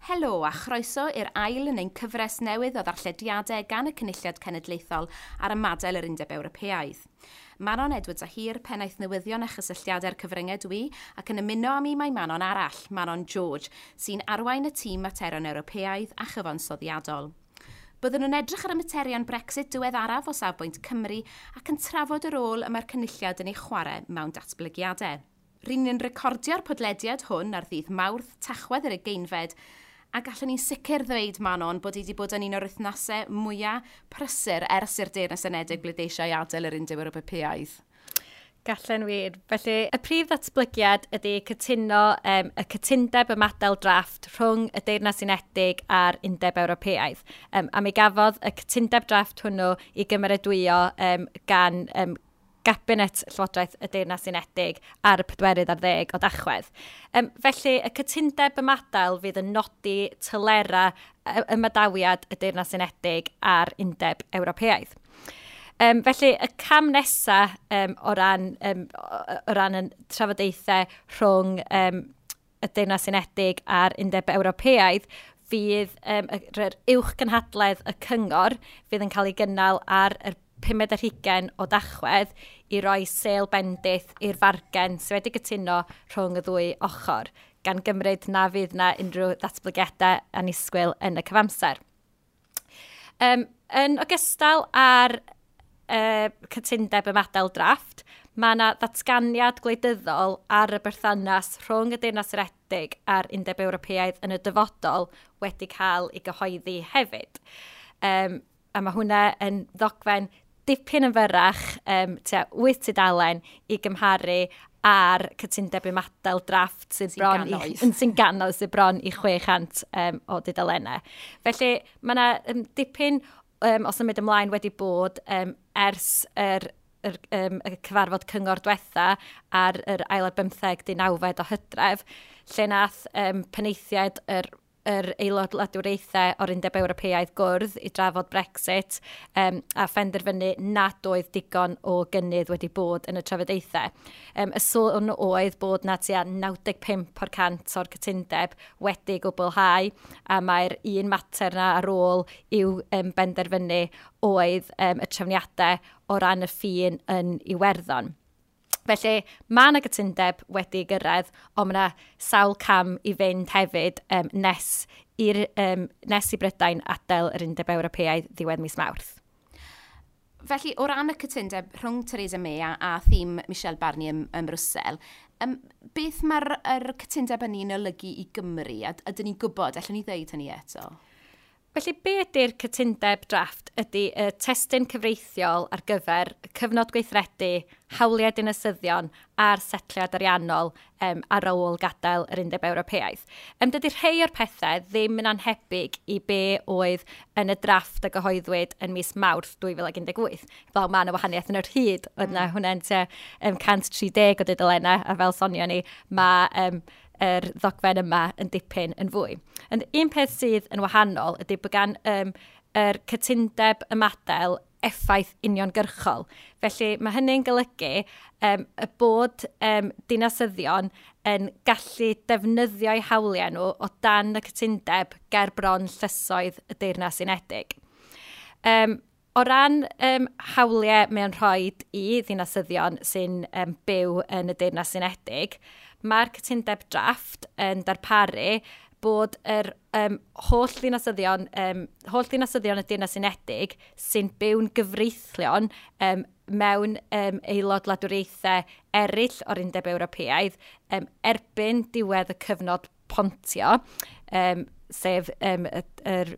Helo a chroeso i'r ail yn ein cyfres newydd o ddarllediadau gan y Cynulliad Cenedlaethol ar ymadael yr Undeb Ewropeaidd. Manon Edwards a Hir, pennaeth newyddion a chysylltiadau'r cyfryngau dwi, ac yn ymuno â mi mae Manon arall, Manon George, sy'n arwain y tîm materion Ewropeaidd a chyfansoddiadol. Byddwn yn edrych ar y materion Brexit diweddaraf o safbwynt Cymru ac yn trafod y rôl y mae'r Cynulliad yn ei chwarae mewn datblygiadau. Ry'n ni'n recordio'r podlediad hwn ar ddydd Mawrth, Tachwedd yr 20fed, a gallwn ni'n sicr ddweud, Manon, bod hi wedi bod yn un o'r wythnosau mwyaf prysur ers i'r Deyrnas Unedig bleidleisio i adael yr Undeb Ewropeaidd. Gallen wir. Felly, y prif ddatblygiad ydy cytuno y cytundeb ymadael drafft rhwng y Deyrnas Unedig a'r Undeb Ewropeaidd. A mi gafodd y cytundeb drafft hwnnw i gymeradwyo gan Gabinet Llywodraeth y Deyrnas Unedig ar y 14 o Dachwedd. Felly, y cytundeb ymadael fydd yn nodi telerau ymadawiad y Deyrnas Unedig a'r Undeb Ewropeaidd. Felly, y cam nesaf o ran y trafodaethau rhwng y Deyrnas Unedig a'r Undeb Ewropeaidd fydd yr uwchgynhadledd y Cyngor fydd yn cael ei gynnal ar yr 25 o Dachwedd i roi sêl bendith i'r fargen sydd wedi cytuno rhwng y ddwy ochr, gan gymryd na fydd na unrhyw ddatblygiadau annisgwyl yn y cyfamser. Yn ogystal â'r cytundeb ymadael drafft, mae yna ddatganiad gwleidyddol ar y berthynas rhwng y Deyrnas Unedig a'r Undeb Ewropeaidd yn y dyfodol wedi cael ei gyhoeddi hefyd. A mae hwnna yn ddogfen dipyn yn fyrrach, tua 8 tudalen i gymharu â'r cytundeb ymadael drafft sydd Sy'n bron i gannoedd. yn sy'n gannoedd, sydd bron i 600 o dudalennau. Felly mae yna dipyn o symud ymlaen wedi bod ers y cyfarfod cyngor diwetha ar yr ail ar bymtheg 19 o Hydref, lle nath penaethiaid yr aelod wladwriaethau o'r Undeb Ewropeaidd gwrdd i drafod Brexit a phenderfynu nad oedd digon o gynnydd wedi bod yn y trafodaethau. Y sôn oedd bod na tua 95% o'r cytundeb wedi gwblhau, a mae'r un mater na ar ôl i'w benderfynu oedd y trefniadau o ran y ffin yn Iwerddon. Felly, mae yna gytundeb wedi gyrraedd, ond mae yna sawl cam i fynd hefyd nes i Brydain adael yr Undeb Ewropeaidd ddiwedd mis Mawrth. Felly, o ran y cytundeb rhwng Theresa May a thîm Michel Barnier ym Mrwsel, beth mae'r cytundeb hynny'n olygu i Gymru? A ydyn ni'n gwybod, allwn ni ddeud hynny eto? Felly, be ydy'r cytundeb drafft ydy y testun cyfreithiol ar gyfer cyfnod gweithredu, hawliau dinasyddion a'r setliad ariannol ar ôl gadael yr Undeb Ewropeaidd. Dydy rhai o'r pethau ddim yn anhebyg i be oedd yn y drafft a gyhoeddwyd yn mis Mawrth 2018. Fel mae yna wahaniaeth yn yr hyd, oedd yna hwnna'n tua 130 o dudalennau, a fel sonio ni, mae yr ddogfen yma yn dipyn yn fwy. Ond un peth sydd yn wahanol ydy bod gan yr cytundeb ymadael effaith uniongyrchol. Felly mae hynny'n golygu y bod dinasyddion yn gallu defnyddio'u hawliau nhw o dan y cytundeb ger bron llysoedd y Deyrnas Unedig. O ran hawliau mae'n rhoi i ddinasyddion sy'n byw yn y Deyrnas Unedig, mae'r cytundeb drafft yn darparu bod yr holl ddinasyddion y Deyrnas Unedig sy'n byw'n gyfreithlon mewn aelod wladwriaethau eraill o'r Undeb Ewropeaidd erbyn diwedd y cyfnod pontio, sef yr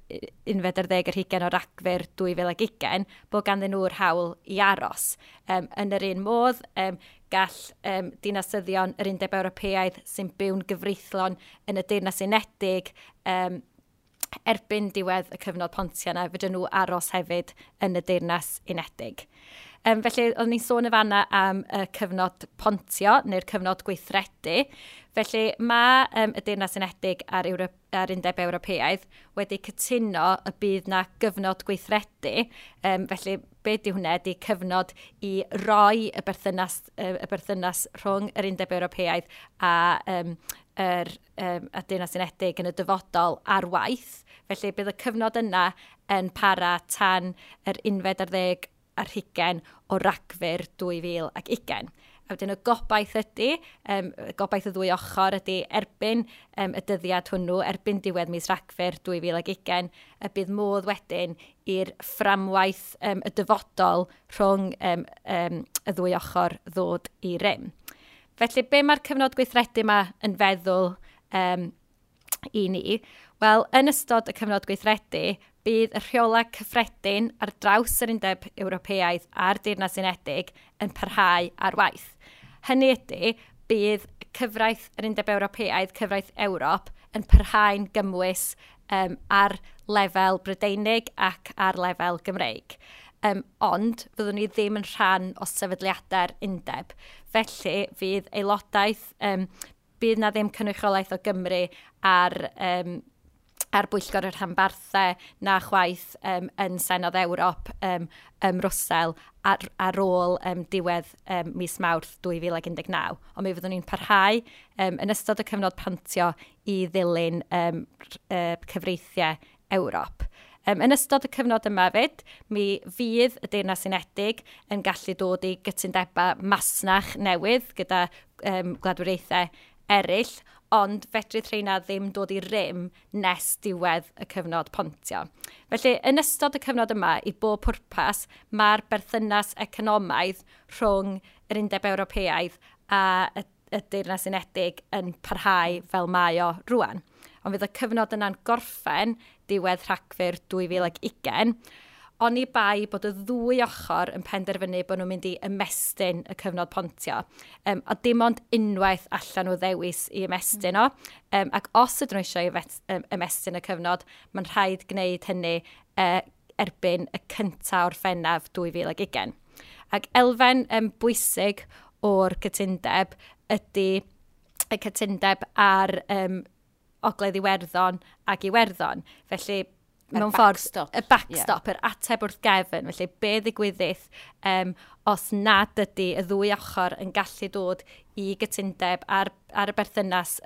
21 o Ragfyr 2020, bod ganddyn nhw'r hawl i aros. Yn yr un modd, gall dinasyddion yr Undeb Ewropeaidd sy'n byw'n gyfreithlon yn y Deyrnas Unedig erbyn diwedd y cyfnod pontio yna, fedrwn nhw aros hefyd yn y Deyrnas Unedig. Felly, oeddwn ni'n sôn y fanna am y cyfnod pontio, neu'r cyfnod gweithredu. Felly, mae y Deyrnas Unedig a'r Undeb Ewropeaidd wedi cytuno y bydd na gyfnod gweithredu. Felly, be di hwnna? Ydy cyfnod i roi y berthynas rhwng yr Undeb Ewropeaidd a Deyrnas Unedig yn y dyfodol ar waith. Felly, bydd y cyfnod yna yn para tan yr 21 o Ragfyr 2020. A wedyn y gobaith ydy, gobaith y ddwy ochr ydy erbyn y dyddiad hwnnw, erbyn diwedd mis Rhagfyr 2020, y bydd modd wedyn i'r fframwaith y dyfodol rhwng y ddwy ochr ddod i rym. Felly, be mae'r cyfnod gweithredu yma yn feddwl i ni? Wel, yn ystod y cyfnod gweithredu, bydd y rheolau cyffredin ar draws yr Undeb Ewropeaidd a'r Deyrnas Unedig yn parhau ar waith. Hynny ydy, bydd cyfraith yr Undeb Ewropeaidd, cyfraith Ewrop, yn parhau'n gymwys ar lefel Brydeinig ac ar lefel Gymreig. Ond fyddwn ni ddim yn rhan o sefydliadau'r undeb. Felly fydd aelodaeth, bydd na ddim cynrychiolaeth o Gymru ar bwyllgor y rhanbarthau na chwaith yn Senedd Ewrop ym Mrwsel ar ôl diwedd mis Mawrth 2019. Ond mi fyddwn ni'n parhau yn ystod y cyfnod pontio i ddilyn cyfreithiau Ewrop. Yn ystod y cyfnod yma fyd, mi fydd y Deyrnas Unedig yn gallu dod i gytundebau masnach newydd gyda gwladwriaethau eraill, ond fedrith rheina ddim dod i rym nes diwedd y cyfnod pontio. Felly, yn ystod y cyfnod yma, i bob pwrpas, mae'r berthynas economaidd rhwng yr Undeb Ewropeaidd a y Deyrnas Unedig yn parhau fel mae o rwan. Ond fydd y cyfnod yna'n gorffen diwedd Rhagfyr 2020, oni bai bod y ddwy ochr yn penderfynu bod nhw'n mynd i ymestyn y cyfnod pontio. A dim ond unwaith allan nhw ddewis i ymestyn o. Ac os ydyn nhw eisiau ymestyn y cyfnod, mae'n rhaid gwneud hynny erbyn y 1 Orffennaf 2020. Ac elfen bwysig o'r cytundeb ydy y cytundeb ar Ogledd Iwerddon ac Iwerddon. Felly, mewn ffordd, y backstop, yr ateb wrth gefn. Felly, be ddigwyddith os nad ydy y ddwy ochr yn gallu dod i gytundeb ar y berthynas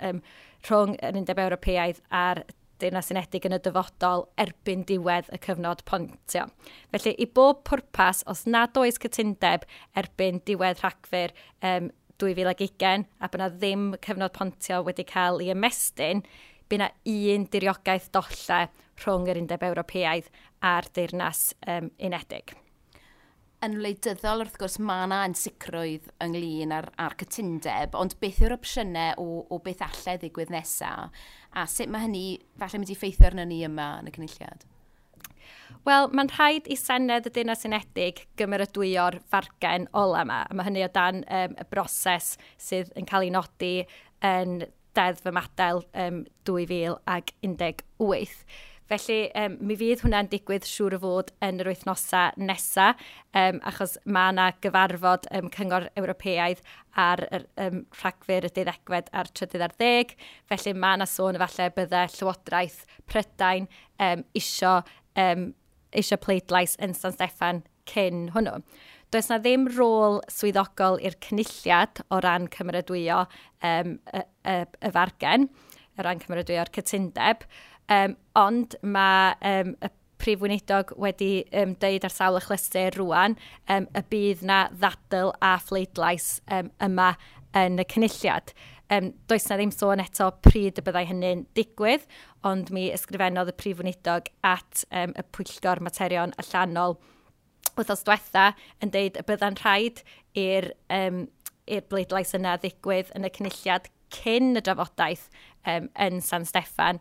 rhwng yr Undeb Ewropeaidd a'r Deyrnas Unedig yn y dyfodol erbyn diwedd y cyfnod pontio. Felly, i bob pwrpas, os nad oes cytundeb erbyn diwedd Rhagfyr 2020 a bod yna ddim cyfnod pontio wedi cael ei ymestyn, bydd yna un diriogaeth dollau rhwng yr Undeb Ewropeaidd a'r Deyrnas Unedig. Yn wleidyddol, wrth gwrs, mae yna ansicrwydd ynglyn â'r cytundeb, ond beth yw'r opsiynau o beth allai ddigwydd nesaf, a sut mae hynny falle mynd i effeithio arno ni yma yn y Cynulliad? Wel, mae'n rhaid i Senedd y Deyrnas Unedig gymeradwyo'r fargen ola yma. A mae hynny o dan y broses sydd yn cael ei nodi yn Deddf Ymadael 2018. Felly, mi fydd hwnna'n digwydd siŵr o fod yn yr wythnosau nesaf, achos mae yna gyfarfod Cyngor Ewropeaidd ar yr Rhagfyr y 12 a'r 13, felly mae yna sôn efallai bydde Llywodraeth Prydain isio pleidlais yn San Steffan cyn hwnnw. Does na ddim rôl swyddogol i'r Cynulliad o ran cymeradwyo y fargen, o ran cymeradwyo'r cytundeb, ond mae y Prif Weinidog wedi deud ar sawl achlysur rwan y bydd na ddadl a phleidlais yma yn y Cynulliad. Does na ddim sôn eto pryd y byddai hynny'n digwydd, ond mi ysgrifennodd y Prif Weinidog at y Pwyllgor Materion Allanol wythnos diwetha yn deud y bydda'n rhaid i'r bleidlais yna ddigwydd yn y Cynulliad cyn y drafodaeth yn San Steffan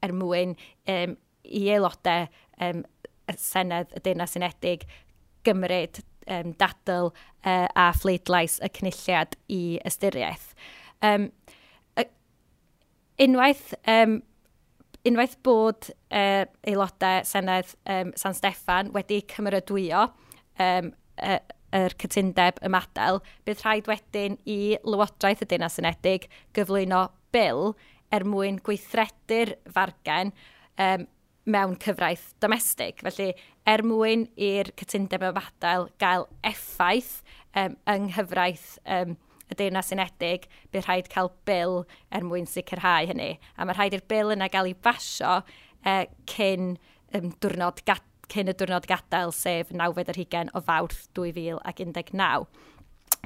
er mwyn i aelodau y Senedd y Deyrnas Unedig gymryd dadl a phleidlais y Cynulliad i ystyriaeth. Unwaith bod aelodau Senedd San Steffan wedi cymeradwyo y, yr cytundeb ymadael, bydd rhaid wedyn i Lywodraeth y Deyrnas Unedig gyflwyno bil er mwyn gweithredu'r fargen mewn cyfraith domestig. Felly, er mwyn i'r cytundeb ymadael gael effaith yng nghyfraith y Deyrnas Unedig, bydd rhaid cael bil er mwyn sicrhau hynny. A mae rhaid i'r bil yna gael ei basio cyn y diwrnod gadael, sef 29 o Fawrth 2019.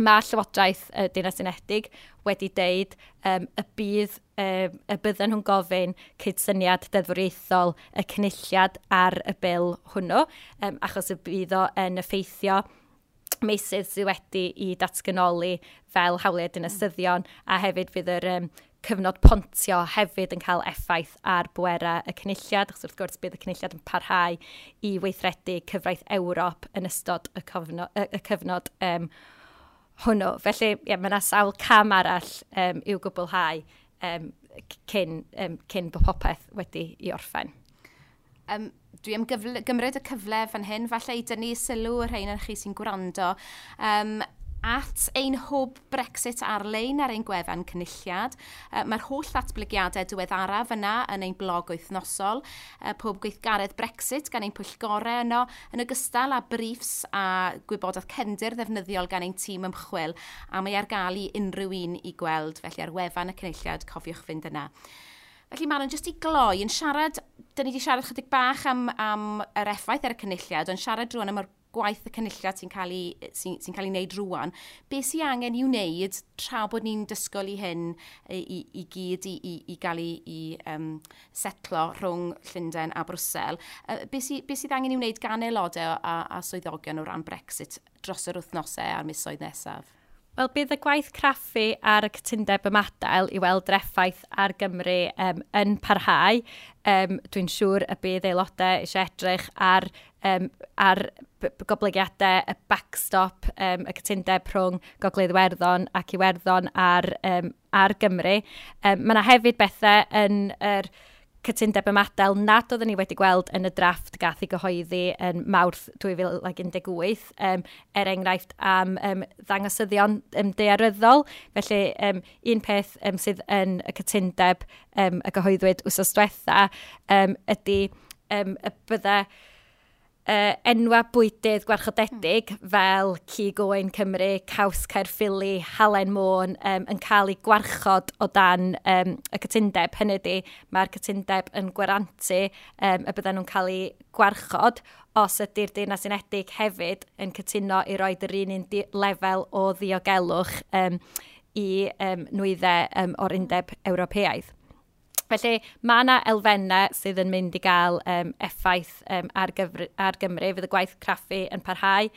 Mae Llywodraeth y Deyrnas Unedig wedi deud y bydden nhw'n gofyn cydsyniad deddfwriaethol y cynulliad ar y bil hwnnw, achos y bydd o yn effeithio meysydd sydd wedi i datganoli fel hawliau dinasyddion, a hefyd fydd yr cyfnod pontio hefyd yn cael effaith ar bwerau y cynulliad, achos wrth gwrs bydd y cynulliad yn parhau i weithredu cyfraith Ewrop yn ystod y cyfnod hwnnw. Felly, ie, mae yna sawl cam arall i'w gwblhau cyn bod popeth wedi i orffen. Dwi am gymryd y cyfle fan hyn, falle i dynnu sylw y rhain chi sy'n gwrando at ein hwb Brexit ar-lein ar ein gwefan Cynulliad. Mae'r holl ddatblygiadau diweddaraf yna yn ein blog wythnosol, pob gweithgaredd Brexit gan ein pwyllgorau yno, yn ogystal â briefs a gwybodaeth cefndir ddefnyddiol gan ein tîm ymchwil, a mae ar gael i unrhyw un i gweld, felly ar wefan y Cynulliad, cofiwch fynd yna. Felly Manon, jyst i gloi, yn siarad, dyn ni wedi siarad chydig bach am yr effaith ar y Cynulliad, ond siarad rŵan am yr gwaith y Cynulliad sy'n cael ei wneud rŵan. Be sy'n angen i'w wneud tra bod ni'n dysgol i hyn i gyd i gael ei setlo rhwng Llundain a Brwsel? Be sydd angen i'w wneud gan aelodau a swyddogion o ran Brexit dros yr wythnosau a'r misoedd nesaf? Wel, bydd y gwaith craffu ar y cytundeb ymadael i weld yr effaith ar Gymru yn parhau. Dwi'n siŵr y bydd aelodau eisiau edrych ar goblygiadau y backstop, y cytundeb rhwng Gogledd Iwerddon ac Iwerddon ar Gymru. Mae yna hefyd bethau yn yr cytundeb ymadael nad oedden ni wedi gweld yn y drafft gath ei gyhoeddi yn Mawrth 2018, er enghraifft am ddangosyddion daearyddol. Felly un peth sydd yn y cytundeb y gyhoeddwyd wythnos diwetha ydy y bydde enwa bwydydd gwarchodedig fel cig oen Cymru, caws Caerffili, halen Môn yn cael ei gwarchod o dan y cytundeb. Hynny ydy, mae'r cytundeb yn gwarantu y bydden nhw'n cael ei gwarchod os ydy'r Deyrnas Unedig hefyd yn cytuno i roed yr un lefel o ddiogelwch i nwyddau o'r Undeb Ewropeaidd. Felly mae yna elfennau sydd yn mynd i gael effaith ar Gymru. Fydd y gwaith craffu yn parhau.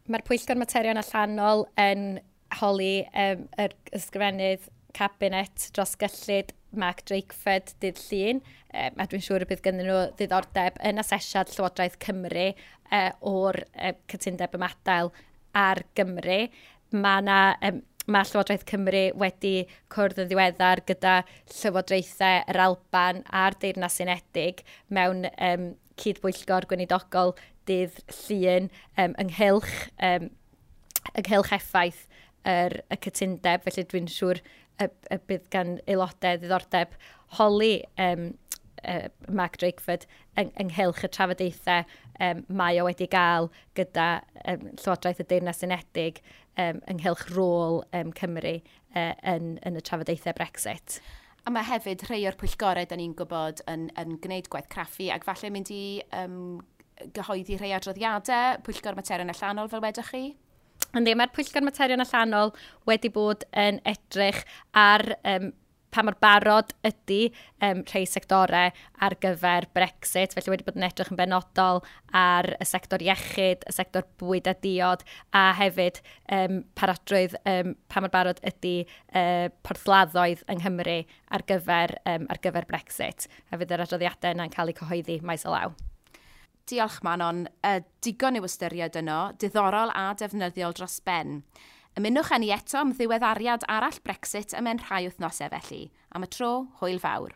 Mae'r Pwyllgor Materion Allanol yn holi yr ysgrifennydd Cabinet dros gyllid Mark Drakeford dydd Llun. A dwi'n siŵr y bydd ganddyn nhw ddiddordeb yn asesiad Llywodraeth Cymru o'r cytundeb ymadael ar Gymru. Mae yna Mae Llywodraeth Cymru wedi cwrdd yn ddiweddar gyda Llywodraethau yr Alban a'r Deyrnas Unedig mewn cydbwyllgor gweinidogol dydd Llun ynghylch effaith y cytundeb. Felly dwi'n siŵr y bydd gan aelodau ddiddordeb holi Mark Drakeford ynghylch y trafodaethau mae o wedi gael gyda Llywodraeth y Deyrnas Unedig ynghylch rôl Cymru yn y trafodaethau Brexit. A mae hefyd rhai o'r pwyllgorau da ni'n gwybod yn gwneud gwaith craffu ac falle mynd i gyhoeddi rhai adroddiadau, Pwyllgor Materion Allanol fel wedwch chi? Yndi, mae'r Pwyllgor Materion Allanol wedi bod yn edrych ar pa mor barod ydy rhai sectorau ar gyfer Brexit. Felly wedi bod yn edrych yn benodol ar y sector iechyd, y sector bwyd a diod, a hefyd parodrwydd pa mor barod ydy porthladdoedd yng Nghymru ar gyfer Brexit. A fydd yr adroddiadau yna'n cael eu cyhoeddi maes o law. Diolch Manon, digon i'w ystyried yno, diddorol a defnyddiol dros ben. Ymunwch â ni eto am ddiweddariad arall Brexit ymhen rhai wythnosau felly. Am y tro, hwyl fawr.